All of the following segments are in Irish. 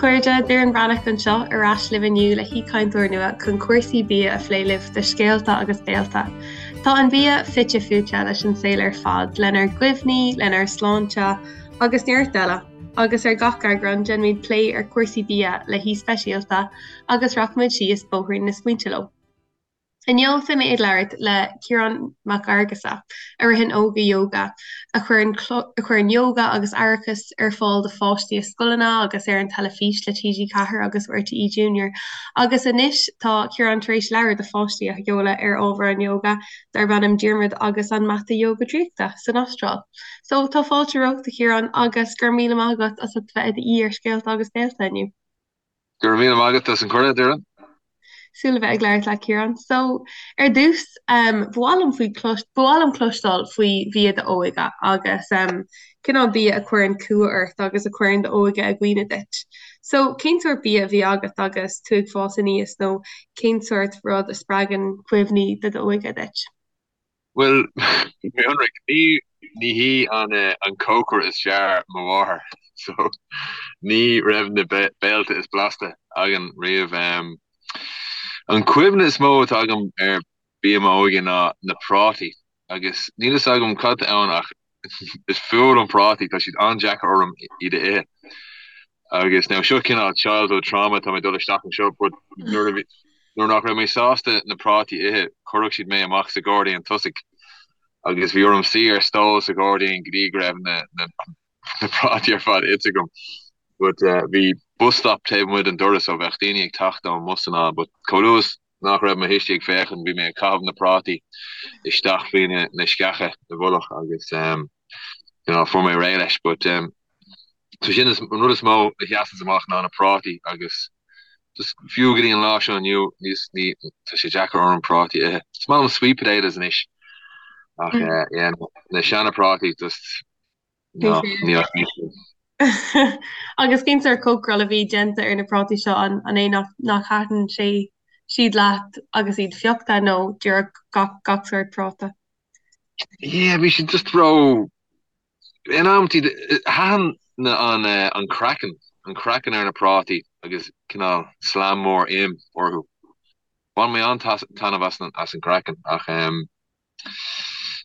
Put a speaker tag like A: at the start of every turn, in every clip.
A: chairde, Doireann Breathnach anseo ar ais libh inniu le haoichainteoir nua chun cúrsaí bia a phlé libh do Scéalta agus Béalta. Tá an bia fite fuaite leis an saol ar fad, lenár gcuimhní, lenár sláinte agus neart eile, agus ar gach eagrán déanaimid plé ar chúrsaí bia le haoi speisialta agus rachaimid síos bóithrín na smaointe leo. Inniu beidh mé ag labhairt le Ciarán Mac Fhearghusa, a ritheann Óga Yoga, a chuireann a chuireann yoga agus aireachas ar fáil do pháistí i scoileanna agus ar an teilifís le TG4 agus RTÉ Junior. Agus anois tá Ciarán tar éis leabhar do pháistí a sheoladh ar ábhar an yoga darb ainm Diarmuid agus an Mata Yoga Draíochta san Astráil. So tá fáilte romhat a Chiaráin agus go raibh míle maith agat as ucht bheith i d'aoi ar Scéalta agus Béalta inniu.
B: Go raibh míle maith agat as an cuireadh, Doireann.
A: Súil le bheith ag labhairt leat, Ciarán. So, ar dtús, um, ba mhaith liom faoi clois, ba mhaith liom cloisteáil faoi bhia d'óige agus um, cineál bia a chuireann cumha ort agus a chuireann d'óige i gcuimhne duit. So, cén sórt bia a bhí agat agus tú ag fás aníos nó cén sórt rud a spreagann cuimhní de d'óige duit?
B: Bhuel, mé ionraic, ní ní hí an an cócaire is fearr mo mháthair, so ní raibh na béilte is blasta againn riamh. An cuimhne is mó atá agam ar bia m'óige ná na prátaí, agus níl fhios agam cad tá ann ach is fuath liom prátaí, tá siad an-deacair orm iad a ithe. Agus now seo cineál childhood trauma tá mé ag dul isteach anseo but nuair a bhí nuair nach raibh mé sásta na prátaí a ithe chuirfeadh siad mé amach sa ghairdín tosaigh agus bhí orm suí ar stól sa ghairdín go dtí go raibh na na na prátaí ar fad ite agam. But uh, bhí bus stop taobh amuigh den doras so bheadh daoine ag teacht ón mbus anall but chomh luath is nach raibh mo thuistí ag féachaint bhí mé ag caitheamh na prátaí isteach faoi na na sceacha i bhfolach agus um, you know, fuair mé réidh leis but um, So sin is an rud is mó a sheasanns amach ná na prátaí agus just fiú go dtí an lá seo inniu níos ní tá sé deacair orm prátaí a ithe. Is maith liom sweet potatoes anois ach eh, yeah, na seana prátaí just
A: no, ní Agus cén sórt cócaráil a bhí déanta ar na prátaí seo an an é nach nach thaitin sé siad leat agus iad fiuchta nó díreach gach gach sórt práta?
B: Yeah, bhí siad just ró In amantaí, thaitin an an craiceann, an craiceann ar na prátaí agus cineál slam mór im orthu. Bhain mé an-taitneamh as an as an gcraiceann ach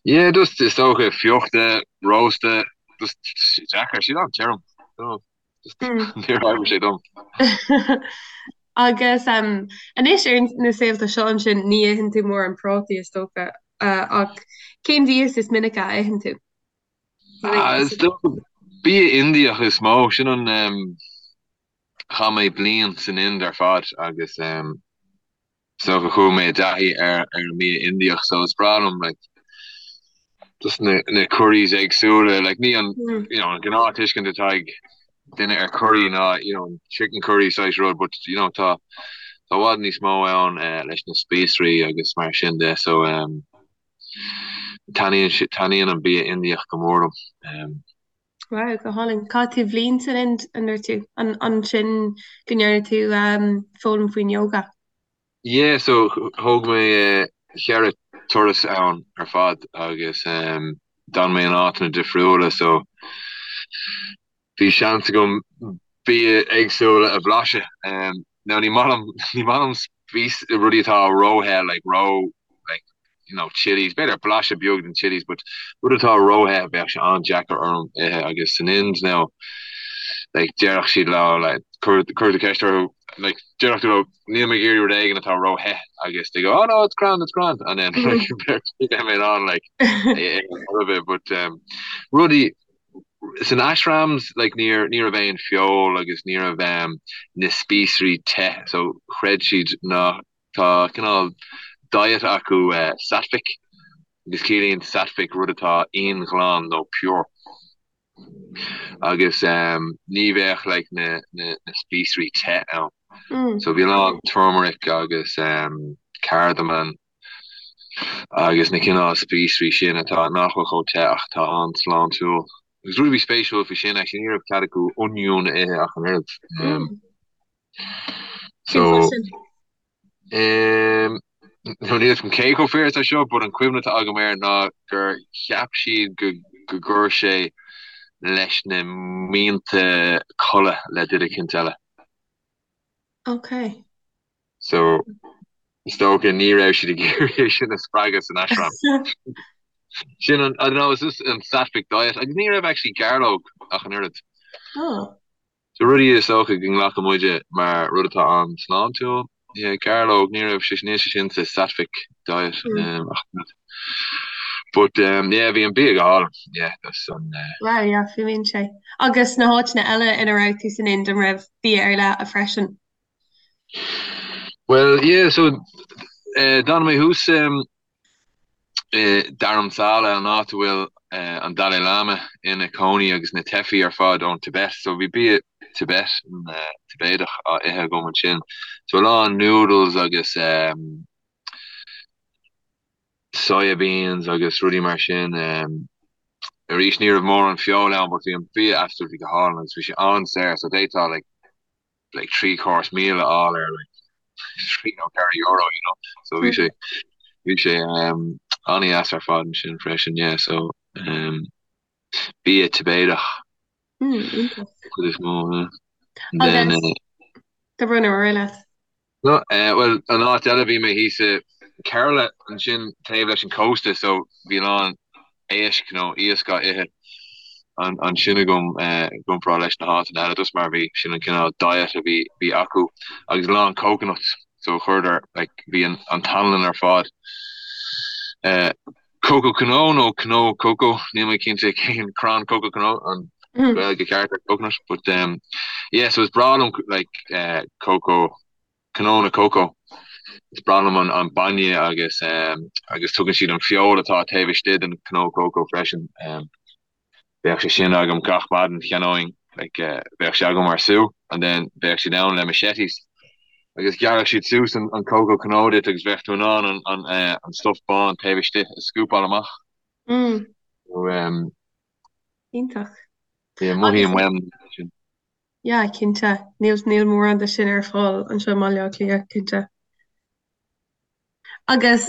B: yeah, just is dócha fiuchta, rósta, just deacair, siad an-tirim. Just níor oibrigh sé dom.
A: Agus anois ar na saolta seo ansin ní itheann tú mórán prátaí is dócha ach cén mhias is minice a itheann tú?
B: Is dócha bia Indiach is mó, sin an chaith mé bliain san Ind ar fad agus is dócha chuaigh mé i dtaithí ar ar an mbia Indiach so is breá liom like just na na curries éagsúla like ní an you know an gnáth tuiscint atá ag duine ar curry ná you know chicken curry saghas rud but you know tá tá i bhfad níos mó ann leis na spíosraí agus mar sin de so um Taitníonn taitníonn an bia Indiach go mór
A: liom. Wow, go hálainn. Chaith tú bliain san Ind, an ndúirt tú? An ansin go ndearna tú foghlaim faoin yoga?
B: Yeah, so thóg mé cheithre turas ann ar fad agus d'fhan mé in áiteanna difriúla so bhí seans agam bia éagsúla a bhlaiseadh. Now ní maith liom, ní maith liom spíos, rudaí atá ró-the, like ró, like, you know, chillies, b'fhéidir blaiseadh beag den chillies, but rud atá ró-the bheadh sé an-deacair orm ithe agus san Ind now, like, déarfadh siad leo, like, cuir, cuir do cheist orthu, like, déarfadh tú leo, níl mé ag iarraidh rud éigin atá ró-the agus they go, oh no, it's grand, it's grand, and then, like, bheadh mé in ann, like, é a ithe, but, um, rudaí, San ashrams like níor ní raibh aon feoil agus ní raibh um, na spíosraí te so chreid siad ná tá cineál diet acu uh, sattvic agus ciallaíonn sattvic rud atá íonghlan nó pure agus um, ní bheadh like na, na, na spíosraí te ann. Mm. So bhí a lán turmeric agus um, cardamom agus na cineál spíosraí sin atá nach bhfuil chomh te ach atá an-sláintiúil. Agus rud a bhí spéisiúil faoi sin actually ní raibh cead acu oinniún a ithe ach an oiread. Um,
A: so,
B: um, níl fhios agam cé chomh fíor atá seo, but an cuimhne atá agam air ná gur cheap siad go go gcuir sé leis na mianta codladh le duine eicínt eile.
A: Ok.
B: So is dócha ní raibh siad ag iarraidh é sin a spreagadh san ashram. Sin an, I don't know, is this an sattvic diet? Agus ní raibh actually gairleog ach an oiread.
A: Oh.
B: So rudaí is dócha go nglacann muide mar rud atá an-sláintiúil. Yeah, gairleog, ní raibh sé, níl sé sin sa sattvic diet um, ach an oiread. But um, yeah, bhí an bia go hálainn. Yeah, that's an uh,
A: Wow, yeah, fuaimíonn sé. Agus na háiteanna eile ina raibh tú san Ind an raibh bia ar leith freisin?
B: Well, yeah, so uh, d'fhan mé thuas um, i Dharamsala, an áit a bhfuil uh, an Dalai Lama ina cónaí agus na teifigh ar fad ón Tibet. So bhí bia Tibet, uh, Tibéadach á ithe agam ansin. So a lán noodles agus um, soya beans agus rudaí mar sin. Um, arís ní raibh mórán feoil ann, but bhí an bia absolutely go hálainn agus bhí sé an-saor, so d'fhéadfá like, like 3 course meal a fháil ar like 3 nó 4 euro, you know. So bhí sé bhí sé um, an-deas ar fad ansin freisin, yeah, so um, bia Tibéadach
A: Mm, iontach.
B: chuid is mó, yeah. And then,
A: Agus
B: uh,
A: do run ar leat.
B: No, eh, bhuel, an áit eile bhí mé thíos i Kerala ansin taobh leis an cósta so bhí a lán éisc nó iasc á ithe ansin agam eh, i gcomparáid leis na háiteanna eile just mar bhí sin an cineál diet a bhí bhí acu agus a lán coconuts so chuireadar like bhí an an t-anlann ar fad eh, Coco cnó nó cnó coco níl mé cinnte cén crann coco cnó an Gaeilge ceart ar coconut but um, yeah so is breá liom like uh, coco cnónna coco is breá liom an, an bainne agus um, agus tugann siad an feoil atá taobh istigh den cnó coco freisin um, Bheadh sé sin agam gach maidin, cheannóinn, like, bheadh sé agam mar sú and then bheadh siad ann le machetes agus ghearrfadh siad suas an, an coco cnó duit agus bheadh tú in ann an, an, eh, an stuff bán taobh istigh a scúpáil amach.
A: Mm.
B: So, um,
A: Iontach.
B: yeah, mothaím uaim sin.
A: Yeah, cinnte. Níl, níl mórán de sin ar fáil anseo i mBaile Átha Cliath, cinnte. Agus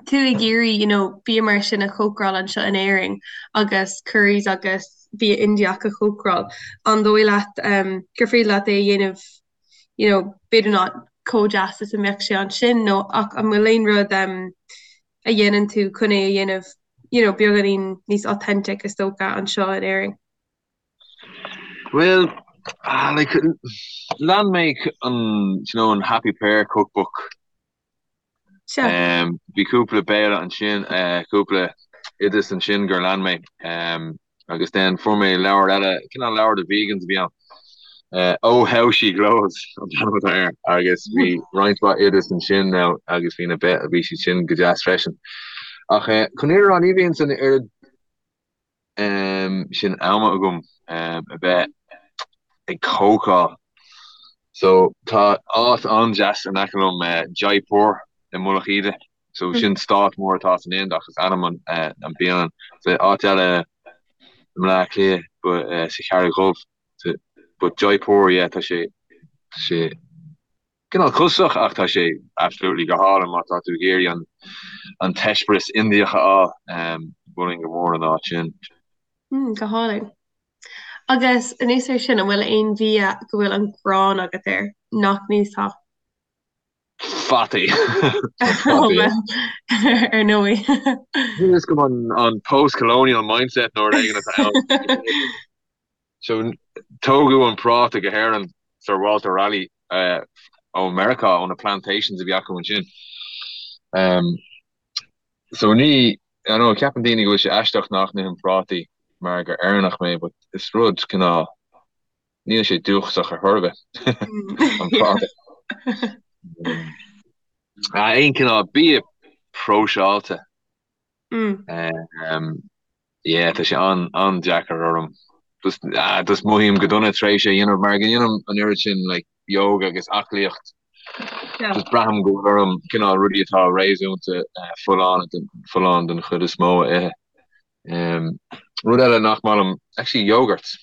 A: tú ag iarraidh you know bia mar sin a chócaráil anseo in Éirinn agus curries agus bia Indiach a chócaráil, an dóigh leat gur féidir leat é a dhéanamh you know b'fhéidir not chomh deas is a mbeadh sé ansin nó ach an bhfuil aon rud a dhéanann tú chun é a dhéanamh you know beagáinín níos authentic is dócha anseo in Éirinn?
B: Bhuel, ah, like, lean mé an, you know, an Happy Pear cookbook.
A: Sea.
B: Um, bhí cúpla béile ansin, eh, cúpla oideas ansin gur lean mé. Um, agus then fuair mé leabhar eile, cineál leabhar do vegans a bhí ann. Eh, Oh How She Glows an t-ainm atá air. Agus bhí roinnt mhaith oideas ansin now agus bhí na be bhí siad sin go deas freisin. Ach eh, chun an fhírinne a rá ní bhíonn an oiread sin ama agam a bheith ag cócáil. So tá áit an-deas in aice liom, Jaipur i Mullach Íde. So sin stát mór atá san Ind ach is ainm an an bialann. So áit eile i mBleá Cliath but sa Charraig Dhubh. But Jaipur yeah tá sé tá sé Cineál costasach ach tá sé absolutely go hálainn má tá tú ag iarraidh an an t-eispéireas Indiach a fháil. Mholfainn go mór an áit sin.
A: Mm, go hálainn. Agus anuas air sin, an bhfuil aon bhia go bhfuil an ghráin agat air nach n-íosfá?
B: Fataí.
A: Oh, well, ar ndóigh.
B: Níl a fhios agam an an post-colonial mindset nó rud éigin atá ann. So, tógadh an práta go hÉirinn, Sir Walter Raleigh, ó Meiriceá, ó na plantations a bhí acu ansin. So ní, I know, ceapann daoine go bhfuil sé aisteach nach n-ithim prátaí mar gur Éireannach mé, but is rud cineál, níl sé dúchasach ar chor ar bith, an práta. Aon cineál bia próiseáilte. Yeah, tá sé an-deacair orm. Just, ah, just mothaím go dona tar éis é a dhéanamh mar go ndéanaim an oiread sin like yoga agus aclaíocht. Just braithim go bhfuil orm cineál rudaí atá réasúnta folláin folláin den chuid is mó a ithe. Rud eile nach maith liom, actually yogurts.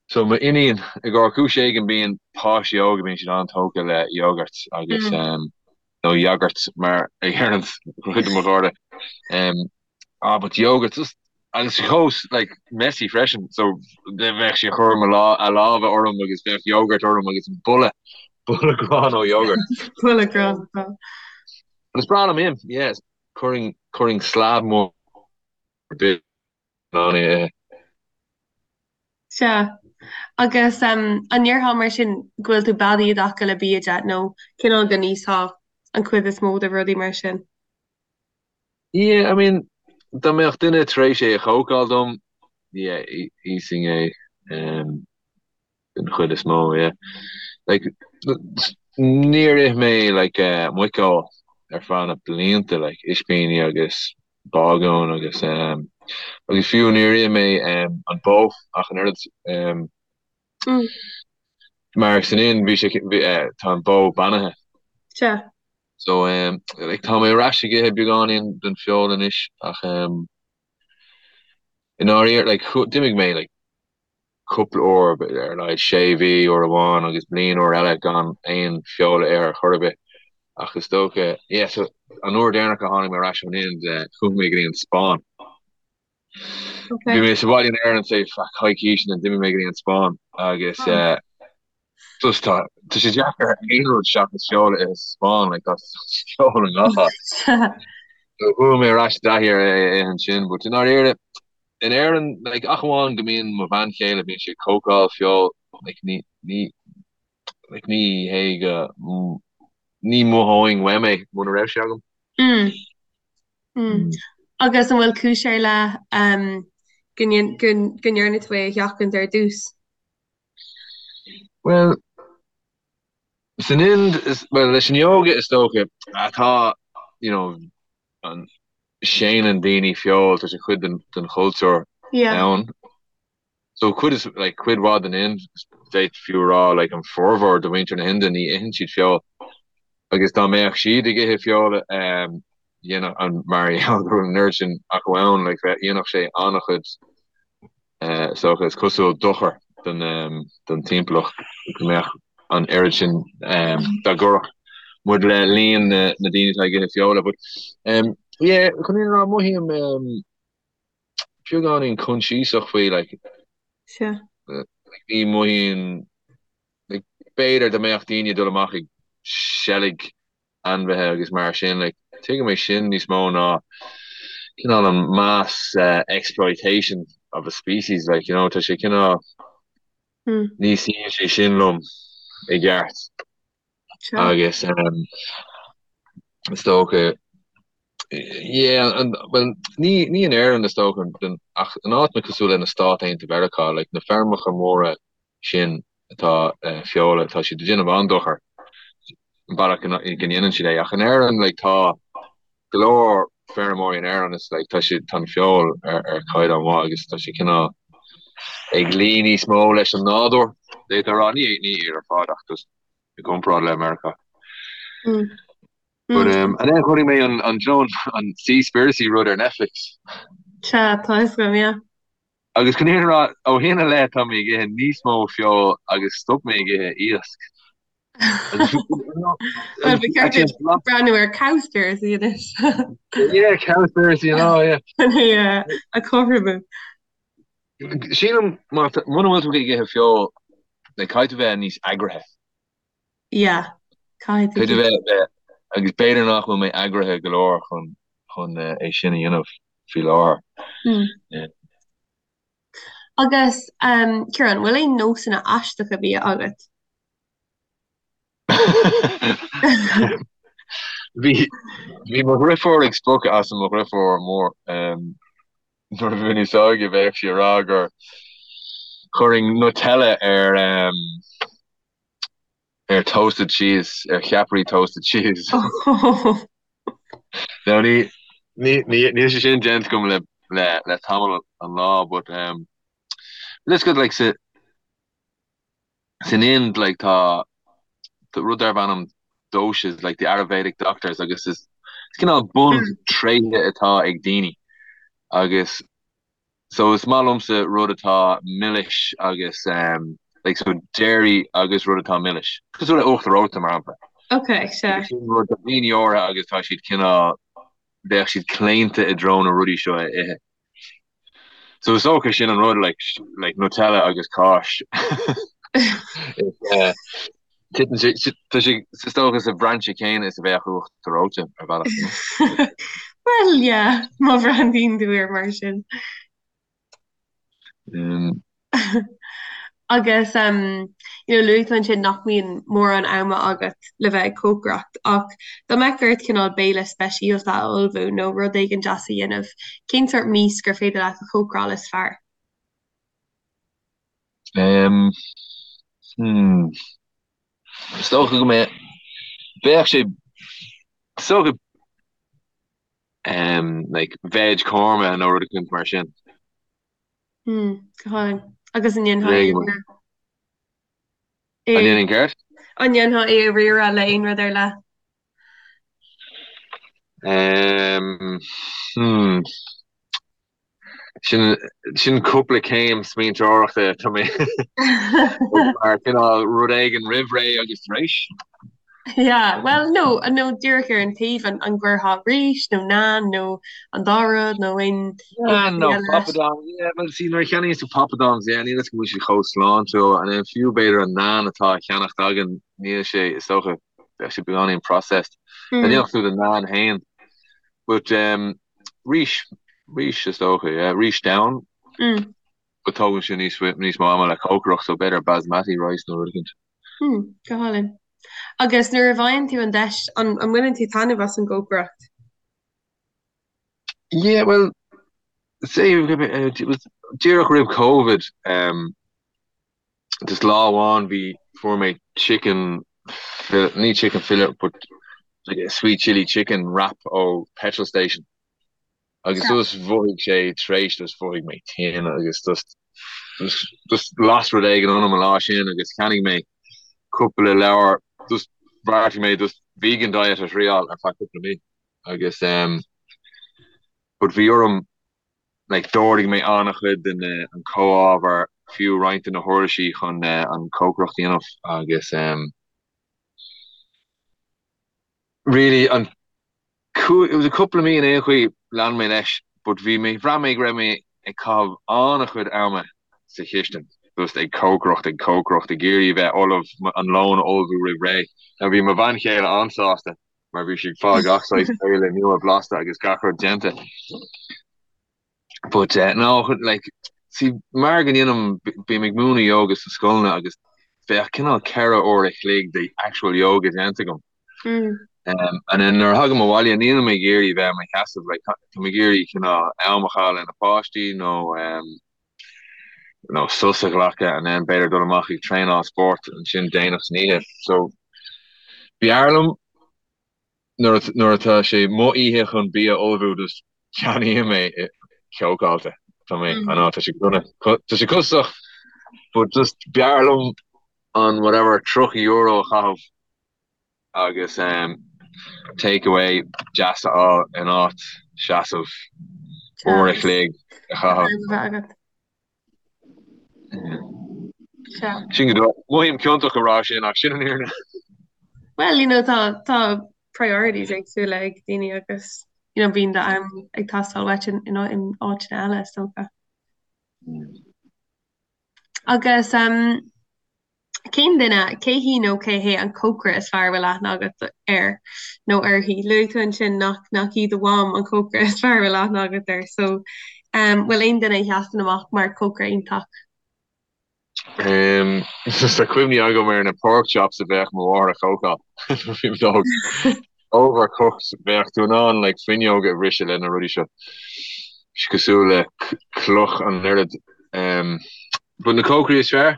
B: So m'iníon, i gcomhair cúis éigin bíonn páistí óga bíonn siad an-tógtha le yogurts agus nó yogurt mar a deireann cuid de mo chairde. Ah, but yogurt, just. Agus chomh like messy freisin so bheadh sí ag cur mo lá a lámha orm agus bheadh yogurt orm agus boladh boladh gránna ó yogurt.
A: Boladh gránna tá.
B: But is breá liom im, yeah, chuirfinn chuirfinn slab mór bith in ann é a ithe.
A: Sea. Agus um, an ndéarfá mar sin go bhfuil tú beadaí i dtaca le bia de nó cineál go n-íosfá an chuid is mó de rudaí mar sin?
B: Yeah, I mean, dá mbeadh duine tar éis é a chócáil dom, yeah, íosfainn é um, den chuid is mó, yeah. Like, níor ith mé like, uh, muiceoil ar feadh na blianta, like, ispíní agus bágún agus um, agus fiú níor ith mé um, an bó ach an oiread um,
A: Mm.
B: mar san Ind bhí sé bhí, uh, tá an bó beannaithe.
A: Sea.
B: So um, like, tá mé ar ais ag ithe beagáinín den feoil anois ach um, i ndáiríre like, d'imigh mé like, cúpla uair ar a laghad sé mhí uair amháin agus bliain uair eile gan aon feoil a ithe ar chor ar bith ach is dócha yeah, so, an uair deireanach a tháinig mé ar ais ón Ind uh, chuaigh mé go dtí an Spáinn.
A: Okay.
B: Bhí mé sa bhaile in Éirinn say feadh coicíse and d'imigh mé go dtí an Spáinn agus
A: Oh.
B: uh, just tá tá sé deacair aon rud seachas feoil a ithe sa Spáinn like tá feoil i ngach áit. So chuaigh mé ar ais i dtaithí ar é a ithe ansin, but i ndáiríre in Éirinn like ach amháin go mbíonn mo bhean chéile bíonn sí ag cócáil feoil like ní ní like ní hé go ní mhothóinn uaim é muna raibh sé agam.
A: Mm. Mm. Agus an bhfuil cúis ar leith um, go ndearna tú é a sheachaint ar dtús?
B: Well, san Ind, is, well, leis an yoga is dócha atá, you know, an séanann daoine feoil, tá sé cuid den, den chultúr
A: Yeah.
B: ann. So cuid is, like, cuid mhaith den Ind, d'fhéadfaí fiú a rá, like, an formhór de mhuintir na hInde ní itheann siad feoil. Agus dá mbeadh siad ag ithe feola, um, dhéanfadh an, mar gheall go bhfuil an oiread sin acu ann, like, bheadh, dhéanfadh sé an-chuid Is dócha, is cosúil, dochar don timpeallacht go mbeadh an oiread sin dá gcuirfeadh muid le líon na ndaoine atá ag ithe feola. But yeah, chun an fhírinne a rá, mothaím beagáinín coinsiasach faoi, like,
A: Sea.
B: like ní mothaíonn, like, b'fhéidir dá mbeadh daoine ag dul amach ag seilg ainmhithe agus mar sin, like, tuigim é sin níos mó ná cineál an mass exploitation of a species, like, you know, tá sé cineál, ní suíonn sé sin liom i gceart. Agus is dócha, yeah, well, ní, ní in Éirinn is dócha, ach in áiteanna cosúil le na Stáit Aontaithe Mheiriceá, like, na feirmeacha móra sin atá feola, tá siad ag déanamh an-dochar an bealach go ndéanann siad é. Ach in Éirinn, like, tá go leor feirmeoirí in Éirinn is like, tá siad, tá an feoil ar, ar chaighdeán mhaith agus tá sé cineál ag luí níos mó leis an nádúr, d'fhéadfá a rá, ní, ní iad ar fad ach just i gcomparáid le Meiriceá.
A: Mm.
B: But um, and then chonaic mé an, an, an, an Seaspiracy rud ar Netflix.
A: Sea, tá fhios agam, yeah.
B: Agus chun an fhírinne a rá, ó shin i leith tá mé ag ithe níos mó feoil agus stop mé ag ithe iasc.
A: Bhuel, ba cheart duit breathnú ar Cowspiracy anois.
B: Yeah, Cowspiracy and all, yeah.
A: Chun é a chothromú.
B: Sílim, muna bhfuil tú ag ithe feoil, like, caithfidh tú bheith níos eagraithe.
A: Yeah, caithfidh tú.
B: Caithfidh tú bheith, agus b'fhéidir nach bhfuil mé eagraithe go leor chun chun é sin a dhéanamh faoi láthair.
A: Mm. Agus um, Ciarán, bhfuil aon nósanna aisteacha bia agat?
B: Bhí bhí mo dhriofúr ag spochadh asam mo dhriofúr mór um, nuair a bhí mé níos óige bheadh sí ag rá gur chuirfinn Nutella ar um, ar toasted cheese, ar cheapairí toasted cheese. Now ní ní ní níl sé sin déanta agam le le le tamall an lá but um let's go like sa san Ind like tá rud darb ainm doshas like the Ayurvedic doctors agus is is cineál buntréithe atá ag daoine agus So is maith liomsa rud atá milis agus um, like so dairy agus rud atá milis. Cosúil le uachtar reoite mar shampla.
A: Ok, sea.
B: Sin rud do dhaoine áirithe agus tá siad cineál bheadh siad claonta i dtreo na rudaí seo a ithe. So is dócha sin an rud like like Nutella agus cáis. Is eh, titeann sé tá sé is dócha sa bhrainse céanna is a bheadh uachtar reoite ar bhealach. you know?
A: Well, yeah, má bhreathnaíonn tú air mar sin.
B: Um,
A: Agus um, you know, luaigh tú ansin nach mbíonn mórán ama agat le bheith ag cócaireacht, ach dá mbeadh ort cineál béile speisialta a ullmhú nó rud éigin deas a dhéanamh, cén sórt mias gur féidir leat a chócaráil is fearr?
B: um, hmm, is dócha go mbeadh bheadh sé is dócha um, like veg korma nó rud éicint mar sin.
A: Hmm, go hálainn. Agus an ndéanfá é
B: a An ndéanfainn céard?
A: An ndéanfá é a riaradh le aon rud ar leith?
B: Um, hmm. Sin, sin cúpla céim smaointeoireachta tá mé mar cineál rud éigin roimh ré agus tar éis.
A: Yeah, well no, nó díreach ar an taobh an, an gcuirfeá rís nó naan nó an dá rud nó aon
B: Naan nó papadom, yeah, well see nuair a cheannaíonn tú papadoms, yeah, níl a fhios go bhfuil siad chomh sláintiúil and then fiú b'fhéidir an naan atá á cheannacht againn, níl sé, is dócha, bheadh sé beagáinín processed. Mm. Dhéanfadh tú do naan féin. But um, rís, rís is dócha, yeah, rís donn.
A: Mm.
B: But tógann sé níos, níos mó ama le cócaireacht, so b'fhéidir basmati rice nó rud éicint.
A: Hmm, go hálainn. Agus nuair a bhfaigheann tú an deis, an, an mbaineann tú taitneamh as an gcócaireacht?
B: Yeah, well, say, it was díreach roimh Covid, um, just lá amháin bhí fuair mé chicken ní chicken fillet but like a sweet chili chicken wrap ó petrol station. Agus just mhothaigh sé tar éis just mhothaigh mé tinn agus just just las rud éigin ionam an lá sin agus cheannaigh mé cúpla leabhar just bheartaigh mé just vegan diet a thriáil ar feadh cúpla mí agus um, but bhí orm like d'ordaigh mé an-chuid de na an comhábhar fiú roinnt de na huirlisí chun uh, an cócaireacht a dhéanamh agus um, really an it was a cúpla mí in aon chaoi lean mé leis but bhí mé bhraith mé go raibh mé ag caitheamh an-chuid ama sa chistin just ag cócaireacht ag cócaireacht ag iarraidh bheith ullamh an lón a ullmhú roimh ré. Now bhí mo bhean chéile an-sásta mar bhí sí ag fáil gach saghas béile nua blasta agus gach rud déanta. But uh, no, like, see, mar go ndéanaim, bím ag múineadh yoga sna scoileanna agus bheadh cineál 4 uair a chloig de actual yoga déanta agam.
A: Mm.
B: Um, and then nuair a thagaim abhaile nílim ag iarraidh bheith i mo sheasamh, like, tá mé ag iarraidh cineál am a chaitheamh le na páistí nó um, nó sos a ghlacadh and then b'fhéidir dul amach ag traenáil spóirt ansin déanach san oíche. So b'fhearr liom Nuair nuair atá sé mo oíche chun bia a ullmhú just ceannaím é cócáilte. Tá mé, I know, tá sé dona, tá sé costasach but just b'fhearr liom an whatever €30 a chaitheamh agus um, take away deas a fháil in áit seasamh uair a chloig a chaitheamh. Sin go Mothaím ciontach a rá sin ach sin an fhírinne.
A: Well, you know, tá tá priorities éagsúla ag daoine agus you know, bíonn do-am ag teastáil uait in, in, in áiteanna eile is dócha. Agus um, Cén duine, cé hí nó cé hé an cócaire is fearr a bhfuil aithne agat air nó uirthi? Luaigh tú ansin nach nach í do mham an cócaire is fearr a bhfuil aithne agat air, so um, bhfuil aon duine a sheasann amach mar cócaire iontach?
B: Um, tá cuimhní agam ar na pork chops a bheadh mo mháthair a chócáil nuair a bhí mé óg. Overcooked bheadh tú in ann like, fuinneog a bhriseadh le na rudaí seo. Cosúil le cloch an oiread. Um, but na cócairí is fearr?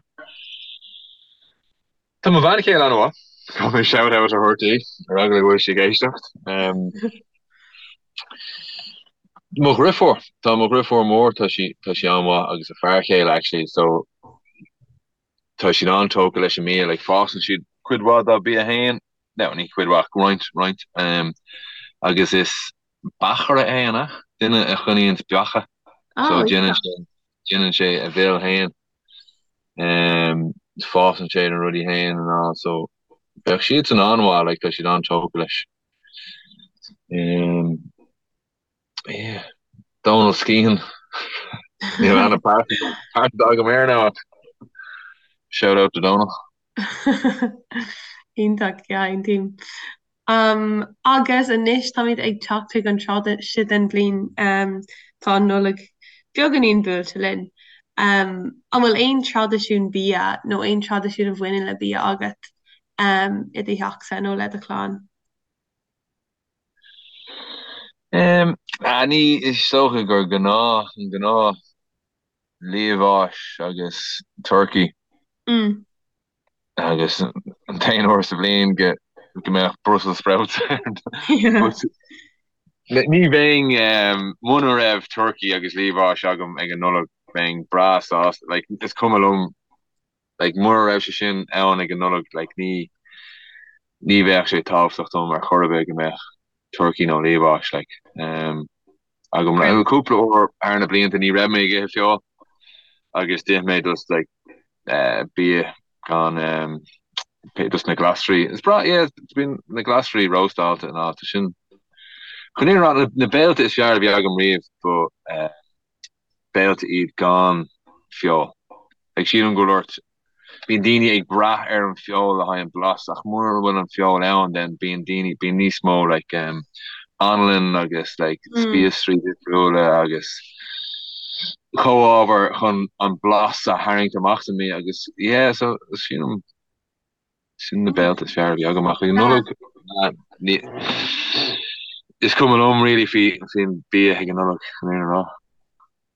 B: Tá mo bhean chéile an-mhaith. Caithfidh mé shout out a thabhairt di ar eagla go bhfuil sí ag éisteacht. Um, mo dheirfiúr, tá mo dheirfiúr mór, tá sí tá sí an-mhaith agus a fear chéile actually, so tá siad an-tógtha leis an mbia, like fásann siad cuid mhaith dá bia féin, no, ní cuid mhaith, roinnt, roinnt, um, agus is beachaire é an ea? Duine a choinníonns beacha, so
A: Oh,
B: déanann sé déanann sé a mhil féin, um, fásann sé na rudaí féin and all, so bheadh siadsan an-mhaith, like tá siad an-tógtha leis. Um, yeah. Donal Skehan. Níl aithne pearsanta agam air now ach shout out to Dónal.
A: Iontach, yeah, aontaím. Um, agus anois táimid ag teacht chuig an tráth seo den bhliain, um, tá an Nollaig beagáinín buailte linn. Um, an bhfuil aon traidisiún bia nó aon traidisiún a bhaineann le bia agat um, i do theachsa nó le do chlann?
B: Um, ní is dócha gur gnáth, an gnáth liamhás agus turcaí.
A: Mm.
B: Agus an t-aon uair sa bhliain go go mbeadh Brussels sprouts. But ní bheinn muna raibh turcaí agus liamhás agam ag an Nollaig bheinn breá sásta. Like is cuma liom like mura raibh sé sin ann ag an Nollaig like ní ní bheadh sé tábhachtach dom ar chor ar bith go mbeadh turcaí nó liamhás like um, agam. Like, cúpla uair thar na blianta ní raibh mé ag ithe feoil agus d'ith mé just like uh, bia gan um, just na glasraí. Is breá yeah, bíonn na glasraí róstálta in áit sin. Chun é rá na béilte is fearr a bhí agam riamh ba uh, béilte iad gan feoil. Like sílim go bhfuil ort, bíonn daoine ag brath ar an feoil le haghaidh an blas ach mura bhfuil an feoil ann then bíonn daoine, bíonn níos mó like um anlann agus like spíosraí difriúla agus comhábhair chun an blas a tharraingt amach sa mbia agus yeah so sílim Sin na béilte is fearr a bhí agam ach ag an Nollaig ní is cuma liom really faoi faoin bia ag an Nollaig chun an fhírinne a rá.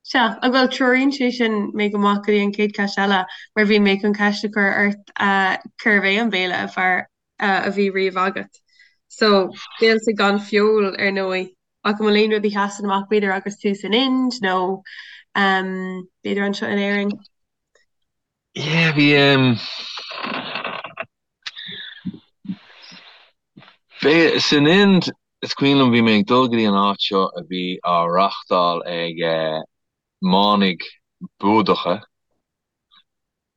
A: Sea, ach bhuel treoraíonn sé sin mé go maith go dtí an chéad cheist eile mar bhí mé chun ceist a chur ort cérbh é an béile ab fhearr a bhí riamh agat. So, béilte gan feoil ar ndóigh, ach an bhfuil aon rud a sheasann amach b'fhéidir agus tú san Ind nó b'fhéidir anseo in Éirinn?
B: Yeah, bhí um, bhí san Ind is cuimhin liom bhí mé ag dul go dtí an áit seo a bhí á reachtáil ag eh, manaigh Búdacha,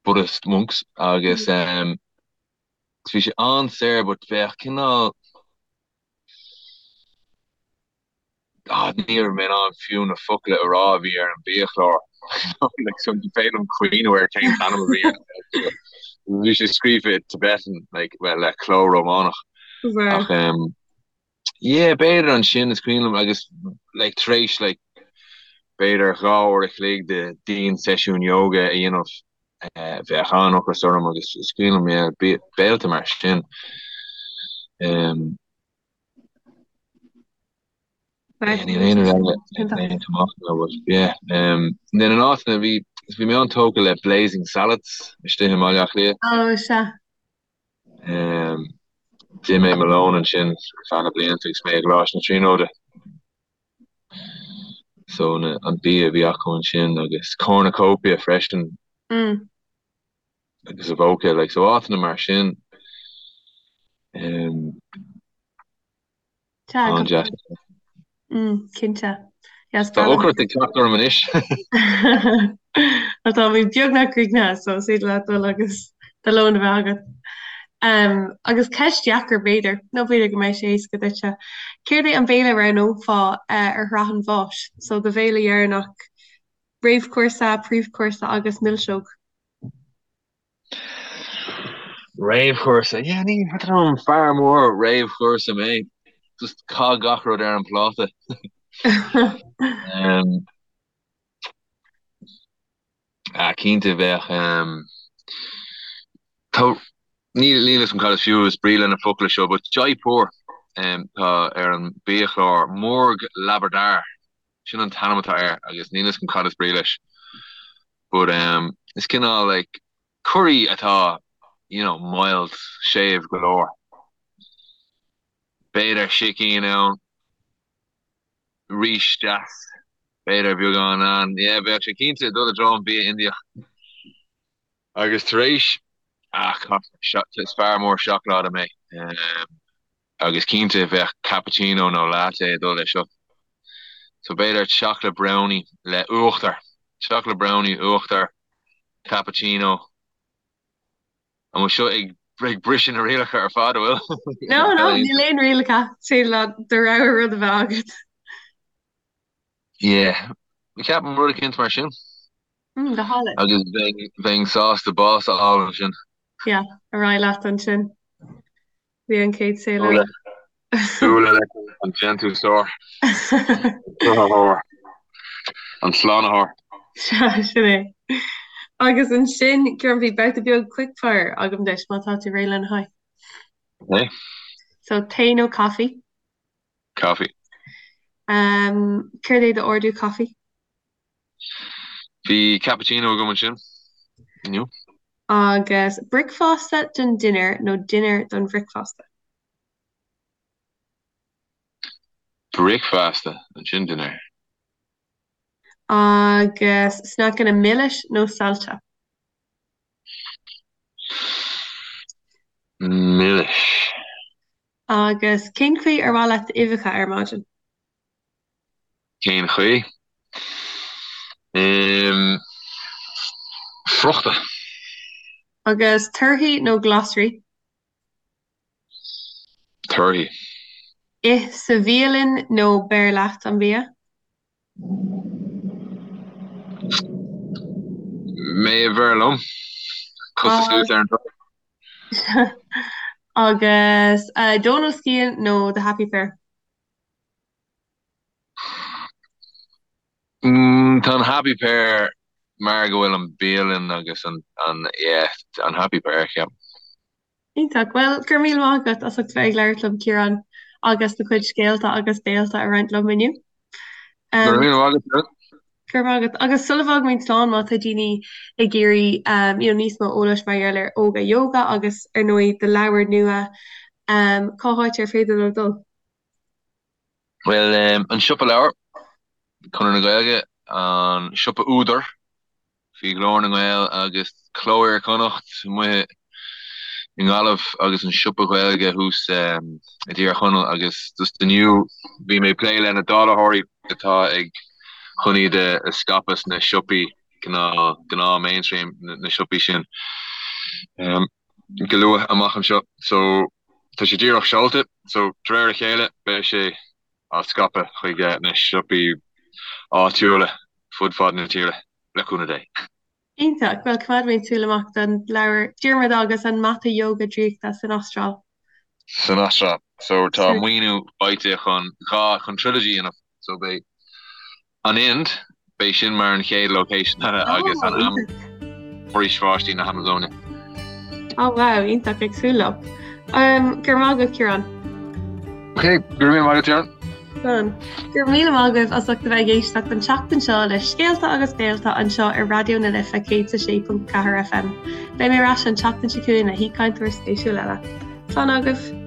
B: Buddhist monks, agus um, bhí sé an-saor but bheadh cineál Ah, ní raibh mé in ann fiú na focla a rá a bhí ar an bhiachlár. Like, so ní féidir liom cuimhneamh ar cén t-ainm a bhí air. Bhí sé scríofa i Tibetan, like, well, le cló Rómánach.
A: Right.
B: Ach, um, yeah, b'fhéidir ansin is cuimhin liom agus, like, tar éis, like, b'fhéidir 2 uair a chloig de dian-seisiún yoga a dhéanamh, eh, bheadh an-ocras orm agus is cuimhin liom, yeah, béilte mar sin. Um, Níl aon rud eile ag amach now but yeah. Um, then in áiteanna bhí bhí mé an-tógtha le Blazing Salads istigh i mBaile Átha Cliath.
A: Oh, sea.
B: Um, d'ith mé mo lón ansin ar feadh na blianta agus mé i gColáiste na Tríonóide. So na, an bia a bhí acu ansin agus Cornucopia freisin.
A: Mm.
B: Agus Avoca, like, so áiteanna mar sin. Um,
A: An-deas. Cinnte.
B: Tá ocras ag teacht orm anois.
A: Tá táimid beagnach críochnaithe so is féidir leat dul agus do lón a bheith agat. Agus ceist dheacair b'fhéidir, nó b'fhéidir go mbeidh sé éasca duitse. Céard é an béile a roghnófá ar shraith an bháis? So do bhéile dheireanach, réamhchúrsa, príomhchúrsa agus milseog.
B: Réamhchúrsa, yeah, ní an fear mór réamhchúrsa mé. Just caith gach rud ar an pláta. um, ah, cinnte bheadh um, tá níl níl a fhios agam cad is fiú is brí le na focla seo, but Jaipur um, tá ar an biachlár Murg Lababdar sin an t-ainm atá air agus níl a fhios agam cad is brí leis. But um is cineál like curry atá you know mild, séimh go leor. B'fhéidir sicín ann, rís deas, b'fhéidir beagán ann. Yeah, bheadh sé cinnte ag dul i dtreo an bia Indiach. Agus tar éis, ah, is fear mór seacláide mé. Um, Agus cinnte bheadh cappuccino nó latte ag dul leis seo. So b'fhéidir chocolate brownie le uachtar. Chocolate brownie, uachtar, cappuccino. An bhfuil seo ag ag briseadh na rialacha ar fad, an bhfuil?
A: No, no, níl aon rialacha. Is féidir leat do rogha rud a bheith agat.
B: Yeah. Ceapaim rud eicínt mar sin.
A: Mm, go hálainn.
B: Agus bheinn, bheinn sásta bás a fháil ansin.
A: Yeah, ar aghaidh leat ansin. Bhí an chéad saol eile.
B: Bualadh leis an déantúsóir. An cruthaitheoir. An slánaitheoir.
A: Sea, sin é. Agus ansin, Ciarán, bhí babhta beag quickfire agam duit, má tá tú réidh lena haghaidh.
B: Okay.
A: So, tae nó caife?
B: Caife.
A: Um, céard é d'ordú caife?
B: Bhí cappuccino agam ansin inniu.
A: Agus bricfeasta don dinnéar nó dinnéar don bhricfeasta?
B: Bricfeasta, ansin dinnéar.
A: Agus sneaiceanna milis nó saillte?
B: Milis.
A: Agus cén chaoi ar mhaith leat d'uibheacha ar maidin?
B: Cén chaoi? Friochta.
A: Agus torthaí nó glasraí?
B: Torthaí.
A: Ith sa bhialann nó beir leat an bia?
B: Mé a bheir liom. Cosa suas ar an dtor.
A: Agus Dónal Skehan nó The Happy Pear?
B: Tá an Happy Pear mar go bhfuil an bialann agus an, yeah, an Happy Pear, ceapaim.
A: Iontach. Bhuel, go raibh míle maith agat as ucht bheith ag labhairt liom, Ciarán, agus do chuid scéalta agus béalta a roinnt liom inniu.
B: Go raibh míle maith agat.
A: Go raibh maith agat. Agus sula bhfágaimid slán, má tá daoine ag iarraidh you know, níos mó eolais mar gheall ar Óga Yoga agus ar ndóigh do leabhar nua, cá háit ar féidir leo dul?
B: Bhuel, an Siopa Leabhar, Conradh na Gaeilge, an Siopa Údar, faoi Ghlór na nGael agus Cló Iar-Chonnacht amuigh i nGaillimh agus an Siopa Gaeilge thuas i dTír Chonaill agus just inniu bhí mé ag plé le na dáilitheoirí atá ag chun iad a scaipeadh sna siopaí gnáth gnáth mainstream na siopaí sin go luath amach anseo so tá sé díreach seolta so de réir a chéile beidh sé á scaipeadh chuig na siopaí áitiúla fud fad na tíre, le cúnamh Dé.
A: Iontach! Bhuel, coimeádfaimid súil amach don leabhar Diarmuid agus an Mata Yoga Draíochta san Astráil.
B: San Astráil. So tá maoiniú faighte chun 2, chun trilogy a dhéanamh. So beidh An Ind, beidh sin mar an chéad location eile agus an Foraois Bháistí na hAmazóine.
A: Oh wow, iontach, ag súil leo. Go raibh maith agat, Ciarán.
B: Ok, go raibh míle maith agat, Ciarán.
A: Slán. Go raibh míle maith agaibh as ucht a bheith ag éisteacht an tseachtain seo le Scéalta agus Béalta anseo ar Raidió na Life 106.4 FM. Beidh mé ar ais an tseachtain seo chugainn le haoichainteoir spéisiúil eile. Slán agaibh!